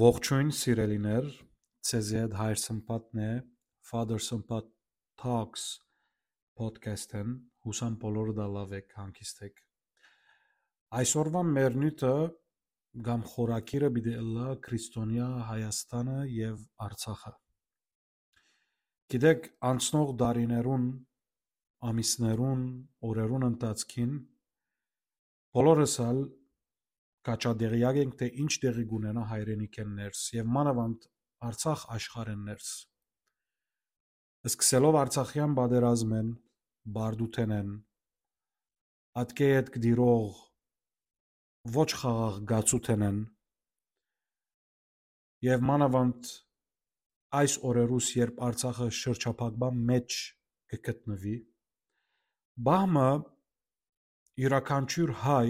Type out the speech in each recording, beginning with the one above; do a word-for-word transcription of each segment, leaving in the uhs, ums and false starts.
Ողջույն, սիրելիներ, ձեզի հետ Հայր Սմբատն է, Father Սմբատ Talks podcast-ն, յուսամ բոլորը դա լաւ եք, հանգիստ եք։ Այսօրվա մեր նիւթը կամ խորագիրը պիտի ըլլայ Քրիստոնեայ Հայաստանը եւ Արցախը։ Գիտեք, անցնող տարիներուն, ամիսներուն, օրերուն ընթացքին բոլորս ալ քաչատեղեակ ենք, թէ ինչ տեղի կունենայ հայրենիքէն ներս եւ մանաւանդ Արցախ աշխարհէն ներս։ Սկսելով Արցախեան պատերազմէն, բարդութենէն, ատկէ ետք տիրող ոչ խաղաղ գացութենէն եւ մանաւանդ այս օրերուս, երբ Արցախը շրջափակման մէջ կը գտնուի, պահ մը իւրաքանչիւր հայ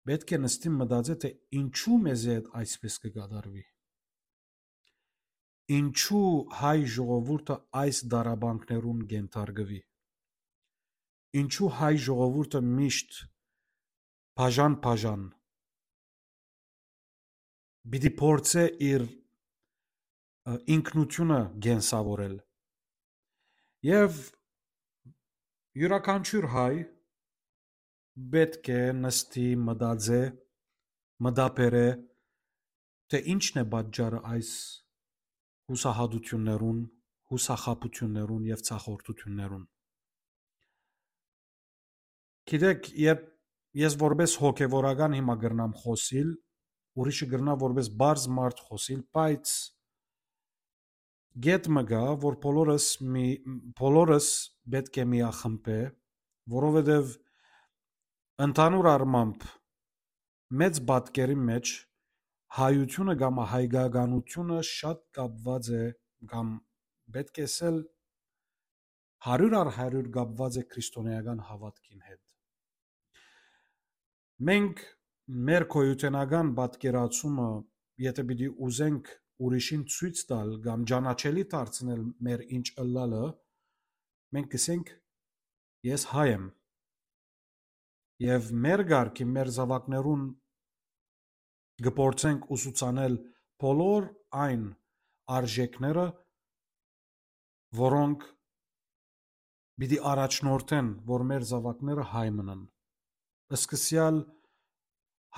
պէտք է նստի մտածէ, թէ ինչու մեզի հետ այսպէս կը կատարուի։ Ինչու հայ ժողովուրդը այս դարաբանքներուն կենթարկուի։ Ինչու հայ ժողովուրդը միշտ բաժան-բաժան պիտի փորձէ իր, ը, ինքնութիւնը կենսաւորել։ Եւ իւրաքանչիւր հայ պէտք է նստի, մտածէ, մտաբերէ, թէ ինչն է պատճառը այս յուսահատութիւններուն, յուսախաբութիւններուն եւ ցախորդութիւններուն։ Գիտեք, երբ ես որպես հոգեվորական հիմա կրնամ խօսիլ, ուրիշը կրնայ որպես պարզ մարդ խօսիլ, բայց կետ մը կայ, որ բոլորս մի-, բոլորս պէտք է միախմբէ, որովհետեւ ընդհանուր առմամբ մեծ պատկերի մէջ հայությունը կամ հայկականությունը շատ կապուած է, կամ պէտք է ըսել, հարիւր առ հարիւր կապուած է քրիստոնէական հաւատքին հետ։ Մենք մեր գոյութենական պատկերացումը, եթէ պիտի ուզենք ուրիշին ցոյց տալ կամ ճանաչելի դարձնել մեր ինչ ըլլալը, մենք կ'ըսենք. «Ես հայ եմ»։ Եւ մեր կարգի, մեր զաւակներուն կը փորձենք ուսուցանել բոլոր այն արժեքները, որոնք պիտի առաջնորդեն, որ մեր զաւակները հայ մնան։ Սկսեալ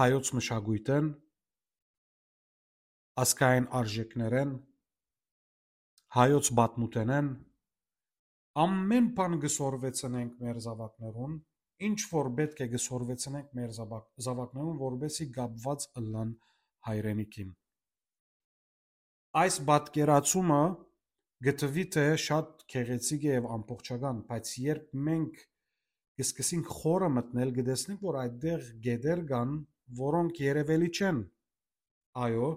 հայոց մշակոյթէն, ազգային արժեքներէն, հայոց պատմութենէն, ամէն բան կը սորվեցնենք մեր զաւակներուն, ինչ որ պէտք է կը սորվեցնենք մեր զաւակ-, զաւակներուն, որպեսզի կապուած ըլլան հայրենիքին։ Այս պատկերացումը կը թուի, թէ շատ գեղեցիկ է եւ ամբողջական, բայց երբ մենք կը սկսենք խորը մտնել, կը տեսնենք, որ այդտեղ գետեր կան, որոնք երևելի չեն։ Այո,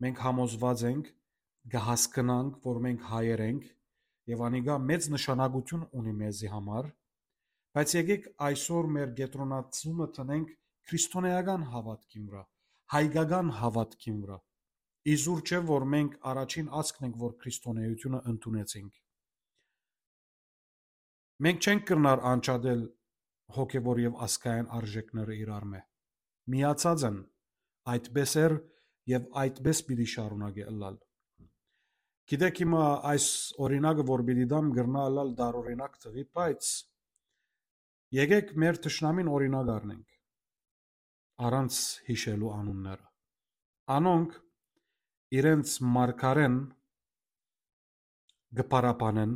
մենք համոզուած ենք, կը հասկնանք, որ մենք հայեր ենք, եւ անիկա մեծ նշանակութիւն ունի մեզի համար, բայց եկեք այսօր մեր կեդրոնացումը դնենք քրիստոնէական հաւատքին վրայ, հայկական հաւատքին վրայ։ Իզուր չէ, որ մենք առաջին ազգն ենք, որ քրիստոնէութիւնը ընդունեցինք։ Մենք չենք կրնար անջատել հոգեվոր եւ ազգային արժեքները իրարմէ։ Միացած են, այդպէս էր եւ այդպէս պիտի շարունակէ ըլլալ։ Գիտեք, հիմա այս օրինակը, որ պիտի դամ, կրնայ ըլլալ տարօրինակ թուի, բայց եկեք մեր թշնամին օրինակ առնենք, առանց յիշելու անունները։ Անոնք իրենց մարգարէն կը փառաբանեն,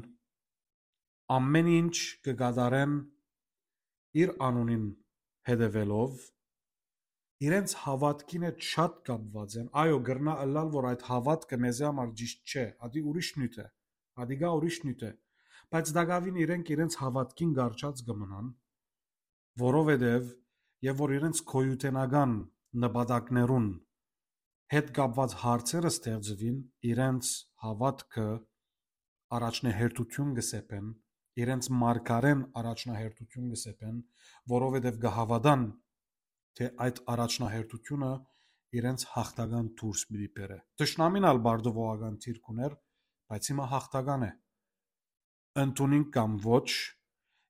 ամէն ինչ կը կատարեն իր անունին հետեւելով, իրենց հաւատքին հետ շատ կապուած են։ Այո, կրնայ ըլլալ, որ այդ հաւատքը մեզի համար ճիշդ չէ, ադի ուրիշ նիւթ է, ադի գայ ուրիշ նիւթ է, բայց տակաւին իրենք իրենց հաւատքին կառչած կը մնան, որովհետեւ, եւ որ իրենց գոյութենական նպատակներուն հետ կապուած հարցերը ստեղծուին, իրենց հաւատքը առաջնահերթութիւն կը սեպեն, իրենց մարգարէն առաջնահերթութիւն կը սեպեն, որովհետեւ կը հաւատան, թէ այդ առաջնահերթութիւնը իրենց յաղթական դուրս պիտի բերէ։ Թշնամին ալ բարդուողական դիրք ունէր, բայց հիմա յաղթական է։ Ընդունին կամ ոչ,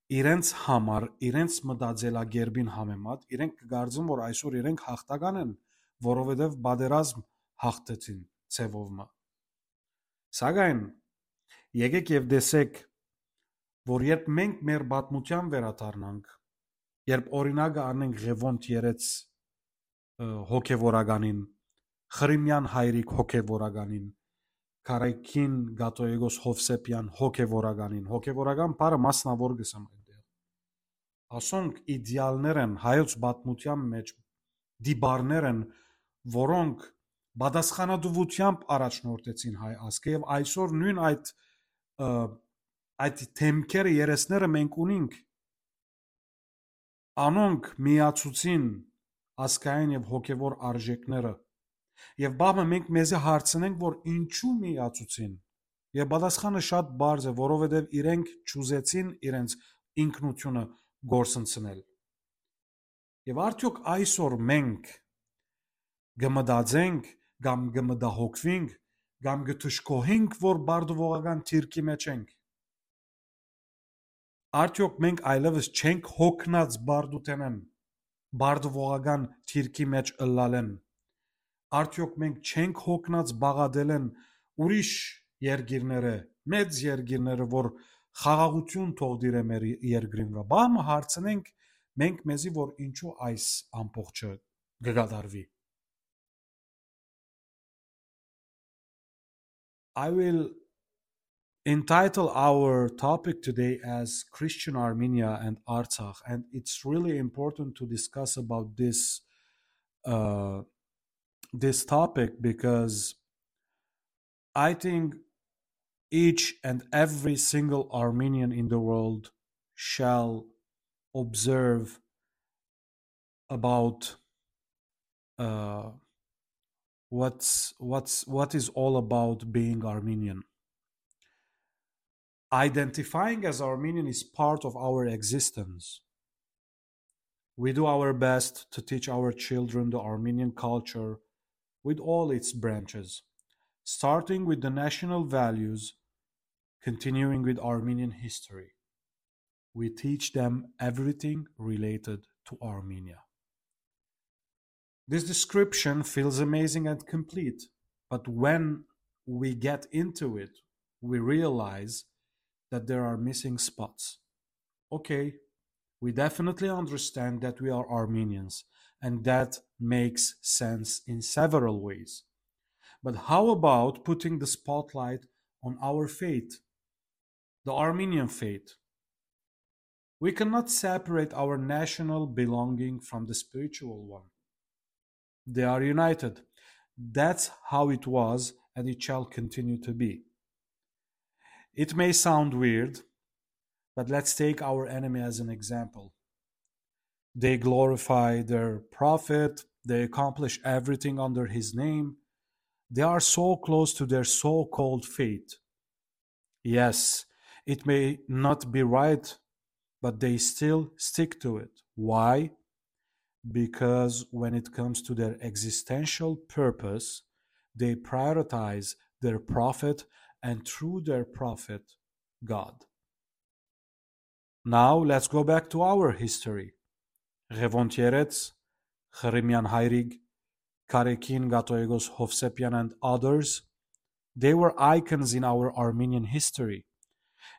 իրենց համար, իրենց մտածելակերպին համեմատ, իրենք կը կարծեն, որ այսօր իրենք յաղթական են, որովհետեւ պատերազմ հաղթեցին ձեւով մը։ Սակայն եկեք եւ տեսեք, որ երբ մենք մեր պատմութեան վերադառնանք, երբ օրինակը առնենք Ղեւոնդ երեց, ը, հոգեվորականին, Խրիմեան Հայրիկ հոգեվորականին, Կարեքին Կաթողիկոս Հովսեփեան հոգեվորականին, հոգեվորական բառը մասնաւոր կ'ըսեմ այնտեղ։ Ասոնք իդեալներ են, հայոց պատմութեան մէջ տիպարներ են, որոնք պատասխանատուութեամբ առաջնորդեցին հայ ազգը եւ այսօր նոյն այդ, ը, այդ դեմքերը, երեսները մենք ունինք։ Անոնք միացուցին ազգային եւ հոգեվոր արժեքները։ Եւ բաղ մը մենք մեզի հարցնենք, որ ինչու միացուցին։ Եւ պատասխանը շատ պարզ է, որովհետեւ իրենք չուզեցին իրենց ինքնությունը կորսնցնել։ Եւ արդեօք այսօր մենք կը մտածենք կամ կը մտահոգվինք կամ կը դժգոհենք, որ բարդուողական թիրքի մէջ ենք։ Արդեօք մենք այլեւս չենք հոգնած բարդութենէն, բարդուողական թիրքի մէջ ըլլալէն։ Արդեօք մենք չենք հոգնած բաղատելէն ուրիշ երկիրները, մեծ երկիրները, որ խաղաղութիւն թողնին մեր երկրին վրայ։ Բաղ մը հարցնենք մենք մեզի, որ ինչու այս ամբողջը կը կատարուի։ I will entitle our topic today as Christian Armenia and Artsakh, and it's really important to discuss about this, uh, this topic because I think each and every single Armenian in the world shall observe about, uh, what's what's what is all about being Armenian. Identifying as Armenian is part of our existence. We do our best to teach our children the Armenian culture with all its branches, starting with the national values, continuing with Armenian history. We teach them everything related to Armenia. This description feels amazing and complete, but when we get into it, we realize that there are missing spots. Okay, we definitely understand that we are Armenians, and that makes sense in several ways. But how about putting the spotlight on our faith, the Armenian faith? We cannot separate our national belonging from the spiritual one. They are united. That's how it was, and it shall continue to be. It may sound weird, but let's take our enemy as an example. They glorify their prophet, they accomplish everything under his name. They are so close to their so-called faith. Yes, it may not be right, but they still stick to it. Why? Because when it comes to their existential purpose, they prioritize their prophet and through their prophet, God. Now let's go back to our history. Ղեւոնդ Երեց, Խրիմեան Հայրիկ, Կարեքին Կաթողիկոս Հովսեփեան and others, they were icons in our Armenian history.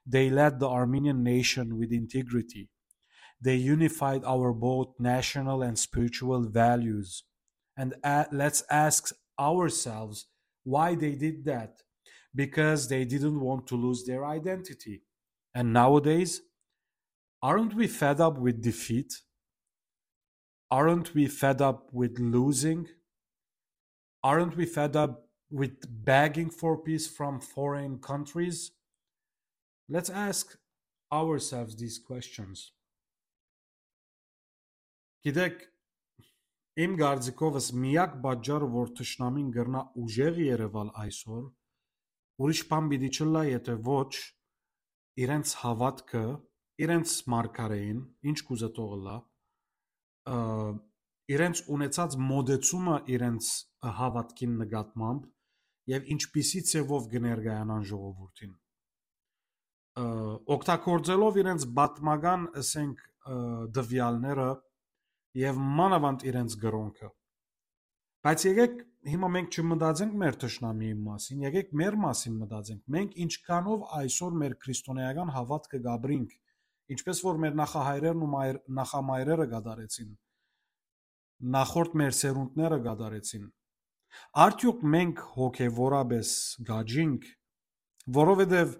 They led the Armenian nation with integrity. They unified our both national and spiritual values. And a- let's ask ourselves why they did that. Because they didn't want to lose their identity. And nowadays, aren't we fed up with defeat? Aren't we fed up with losing? Aren't we fed up with begging for peace from foreign countries? Let's ask ourselves these questions. Գիտեք, իմ կարծիքովս միակ պատճառը, որ թշնամին կրնայ ուժեղ երեւալ այսօր, ուրիշ բան պիտի չըլլայ, եթե ոչ իրենց հաւատքը, իրենց մարգարէին, ինչ կուզէ թող ըլլայ, ը, իրենց ունեցած մոտեցումը իրենց հաւատքին նկատմամբ եւ ինչպիսի ձեւով կը ներկայանան ժողովուրդին։ Ը, օգտագործելով իրենց պատմական, ասենք, ը, տվեալները եւ մանաւանդ իրենց կրօնքը։ Բայց եկեք հիմա մենք չմտածենք մեր թշնամիի մասին, եկեք մեր մասին մտածենք։ Մենք ինչքանով այսօր մեր քրիստոնեական հաւատքը կապրինք, ինչպես որ մեր նախահայրերն ու մայր-, նախամայրերը կատարեցին, նախորդ մեր սերունդները կատարեցին։ Արդյոք մենք հոգեվորապես գաճինք, որովհետև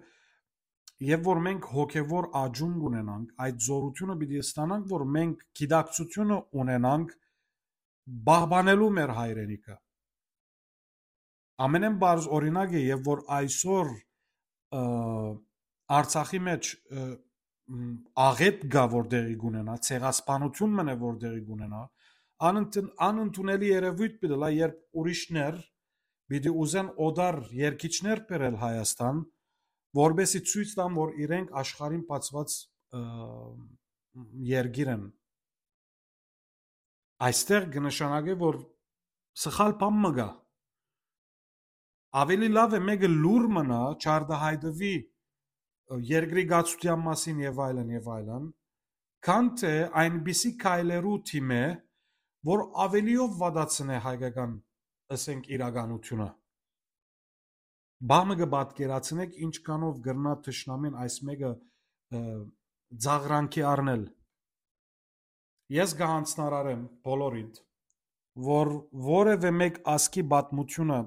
եւ որ մենք հոգեվոր աճում կունենանք, այդ զորությունը պիտի ստանանք, որ մենք գիտակցությունը ունենանք պահպանելու մեր հայրենիքը։ Ամենէն բարձ օրինակ է, եւ որ այսօր, ը, Արցախի մեջ, ը, մ, աղետ կա, որ տեղի կունենա, ցեղասպանություն մնե, որ տեղի կունենա, անընդուն-, անընդունելի երևույթ պիտի լա, երբ ուրիշներ պիտի ուզեն օտար երկիչներ բերել Հայաստան, որպեսզի ցոյց տան, որ իրենք աշխարհին բացուած, ը, երկիր են։ Այստեղ կը նշանակէ, որ սխալ բան մը կայ։ Աւելի լաւ է մէկը լուր մնայ, չարտահայտուի, ը, երկրի կացութեան մասին եւ այլն եւ այլն, քան թէ այնպիսի քայլերու թիմէ, որ աւելիով վատացնէ հայկական, ըսենք, իրականությունը։ Բահ մը կը պատկերացնեք, ինչքանով կրնայ թշնամին այս մէկը, ը, ծաղրանքի առնել։ Ես կը յանձնարարեմ բոլորիդ, որ որևէ մէկ ազգի պատմությունը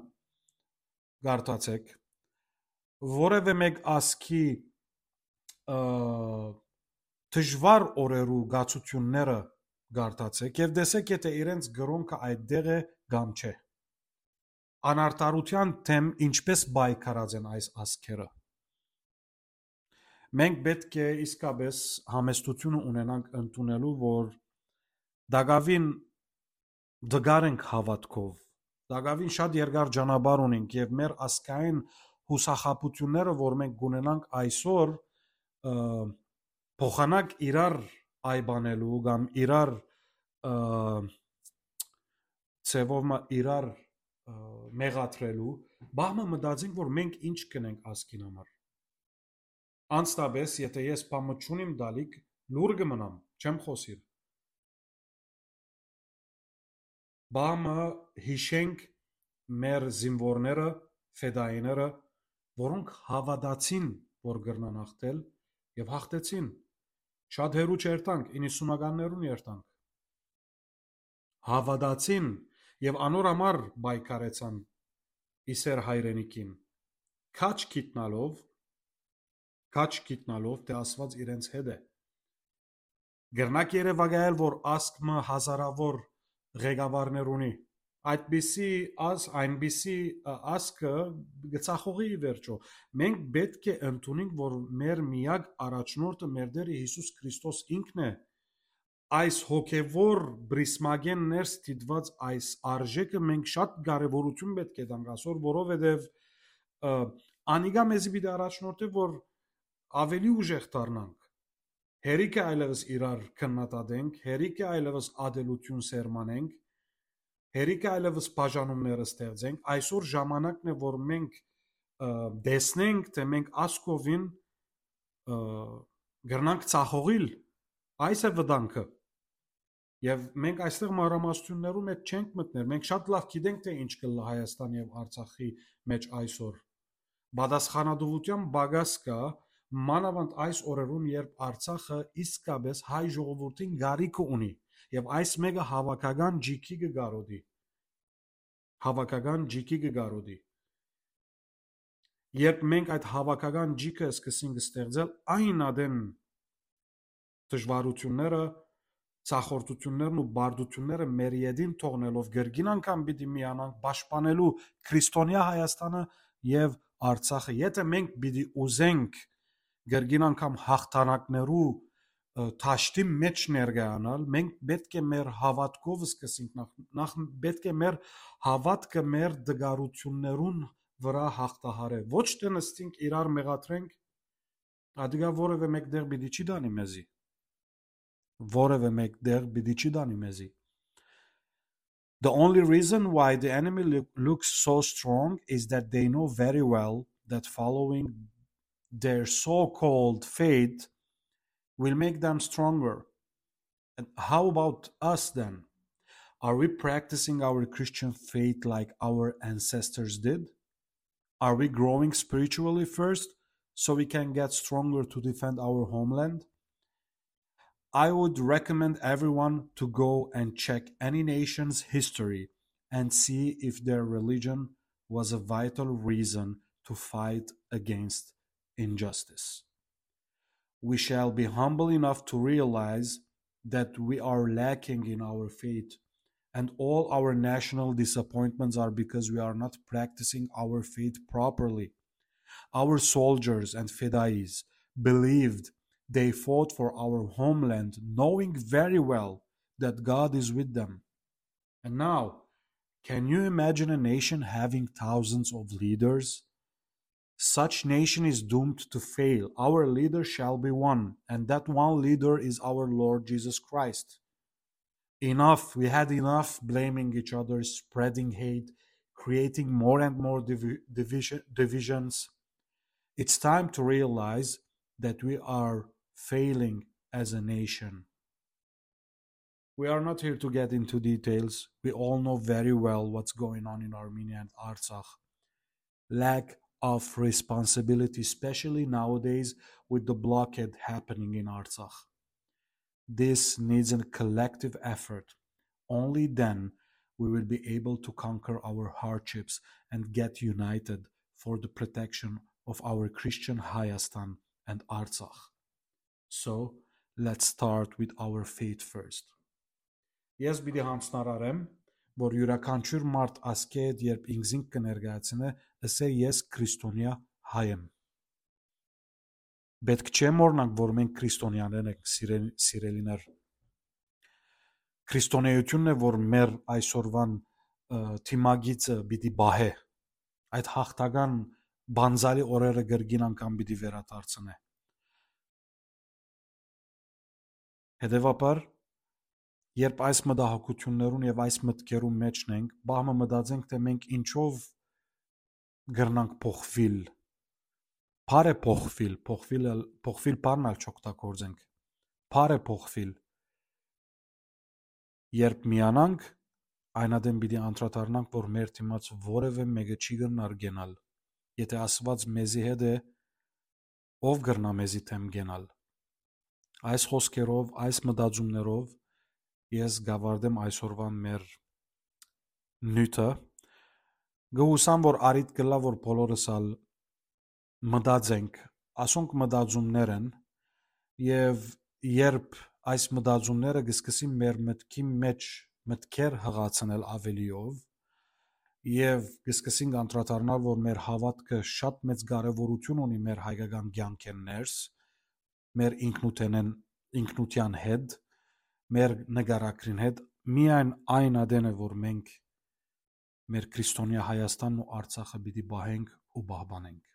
կարդացեք, որևէ մէկ ազգի, ը, դժուար օրերու կացութիւնները կարդացեք եւ տեսեք, եթէ իրենց կրօնքը այդտեղ է կամ չէ։ Անարդարութեան դէմ ինչպես պայքարած են այս ազգերը։ Մենք պէտք է իսկապես համեստությունը ունենանք ընդունելու, որ տակաւին տկար ենք հաւատքով, տակաւին շատ երկար ճանապարհ ունենք եւ մեր ազգային յուսախաբութիւնները, որ մենք կունենանք այսօր, ը, փոխանակ իրար այբանելու կամ իրար, ը, ձևով մը իրար, ը, մեղադրելու, բահ մը մտածենք, որ մենք ինչ կնենք ազգին համար։ Անստապես, եթէ ես բան մը չունիմ տալիք, լուր կը մնամ, չեմ խօսիր։ Բահ մը յիշենք մեր զինուորները, ֆեդայիները, որոնք հաւատացին, որ կրնան հաղթել, եւ հաղթեցին։ Շատ հեռու չերթանք, իննսունականներուն երթանք։ Հաւատացին եւ անոր համար պայքարեցան ի սեր հայրենիքին, քաջ գիտնալով, քաջ գիտնալով, թէ Աստուած իրենց հետ է։ Կրնակ երեւակայել, որ ազգ մը հազարավոր ղեկավարներ ունի։ Այդպիսի ազգ, այնպիսի, ը, ազգը կը ծախողի ի վերջոյ։ Մենք պէտք է ընդունենք, որ մեր միակ առաջնորդը մեր Տէրը Յիսուս Քրիստոս ինքն է։ Այս հոգեվոր պրիզմակէն ներս դիտուած այս արժէքը մենք շատ կարեւորութիւն պէտք է տանք այսօր, որովհետեւ, ը, անիկա մեզի պիտի առաջնորդէ, որ աւելի ուժեղ դառնանք։ Հերիքը այլեւս իրար քննադատենք, հերիքը այլեւս ատելութիւն սերմանենք, հերիքը այլեւս բաժանումներ ստեղծենք։ Այսօր ժամանակն է, որ մենք, ը, տեսնենք, թէ մենք ասկովին, ը, կրնանք ծախողիլ։ Այս է վտանգը։ Եւ մենք այստեղ մանրամասնություններու մեջ չենք մտներ։ Մենք շատ լաւ գիտենք, թէ ինչ կ'ըլլայ Հայաստան եւ Արցախի մեջ այսօր։ Պատասխանատուութեան պակաս կայ, մանաւանդ այս օրերուն, երբ Արցախը իսկապես հայ ժողովուրդին կարիքը ունի, եւ այս մէկը հաւաքական ջիքի կը կարոտի։ Հաւաքական ջիքի կը կարոտի։ Երբ մենք այդ հաւաքական ջիքը սկսենք ստեղծել, այն ատեն դժվարութիւնները, ցախորդութիւններն ու բարդութիւնները մեր ետին թողնելով, կրկին անգամ պիտի միանանք պաշտպանելու քրիստոնեայ Հայաստանը եւ Արցախը։ Եթէ մենք պիտի ուզենք կրկին անգամ հաղթանակներու, ը, դաշտի մեջ ներկայանալ, մենք պէտք է մեր հաւատքով սկսենք, նախ, նախ պէտք է մեր հաւատքը մեր դժվարութիւններուն վրայ հաղթահարէ։ Ոչ թէ նստենք իրար մեղադրենք, ատիկա որեւէ մեկտեղ պիտի չի տանի մեզի։ Որեւէ մեկտեղ պիտի չի տանի մեզի։ The only reason why the enemy loo-, looks so strong is that they know very well that following their so-called faith will make them stronger. And how about us then? Are we practicing our Christian faith like our ancestors did? Are we growing spiritually first so we can get stronger to defend our homeland? I would recommend everyone to go and check any nation's history and see if their religion was a vital reason to fight against injustice. We shall be humble enough to realize that we are lacking in our faith, and all our national disappointments are because we are not practicing our faith properly. Our soldiers and fedayis believed they fought for our homeland, knowing very well that God is with them. And now, can you imagine a nation having thousands of leaders? Such nation is doomed to fail. Our leader shall be one, and that one leader is our Lord Jesus Christ. Enough, we had enough blaming each other, spreading hate, creating more and more divi- division, divisions. It's time to realize that we are failing as a nation. We are not here to get into details. We all know very well what's going on in Armenia and Artsakh. Lack of responsibility, especially nowadays with the blockade happening in Artsakh. This needs a collective effort. Only then we will be able to conquer our hardships and get united for the protection of our Christian Hayastan and Artsakh. So, let's start with our faith first. Ես պիտի յանցնարարեմ, որ իւրաքանչիւր մարդ ասկէ հետ, երբ ինքզինք կը ներկայացնէ, ըսէ. Ես քրիստոնեայ հայ եմ։ Պէտք չէ մոռնանք, որ մենք քրիստոնեաներ ենք, սիրել- սիրելիներ։ Քրիստոնեայութիւնն է, որ մեր այսօրուան, ը, դիմագիծը պիտի պահէ։ Այդ յաղթական պանծալի օրերը կրկին անգամ պիտի վերադարձնէ։ Հետեւաբար, երբ այս մտահոգութիւններուն եւ այս մտքերուն մէջն ենք, պահ մը մտածենք, թէ մենք ինչով կրնանք փոխուիլ։ Բարեփոխուիլ, փոխուիլ ալ- փոխուիլ բառն ալ չօգտագործենք։ Բարեփոխուիլ։ Երբ միանանք, այն ատեն պիտի անդրադառնանք, որ մեր դիմաց որեւէ մէկը չի կրնար կենալ։ Եթէ Աստուած մեզի հետ է, ո՞վ կրնայ մեզի դէմ կենալ։ Այս խօսքերով, այս մտածումներով ես կ'աւարտեմ այսօրուան մեր նիւթը։ Կը յուսամ, որ առիթ կ'ըլլայ, որ բոլորս ալ մտածենք, ասոնք մտածումներ են, եւ երբ այս մտածումները կը սկսին մեր մտքի մէջ մտքեր յղացնել ավելիով, եւ կը սկսենք անդրադառնալ, որ մեր հաւատքը շատ մեծ կարեւորութիւն ունի մեր հայկական կեանքէն ներս, մեր ինքնութենէն, ինքնութեան հետ, մեր նկարագրին հետ, միայն այն ատեն է, որ մենք մեր քրիստոնեայ Հայաստանն ու Արցախը պիտի պահենք ու պահպանենք։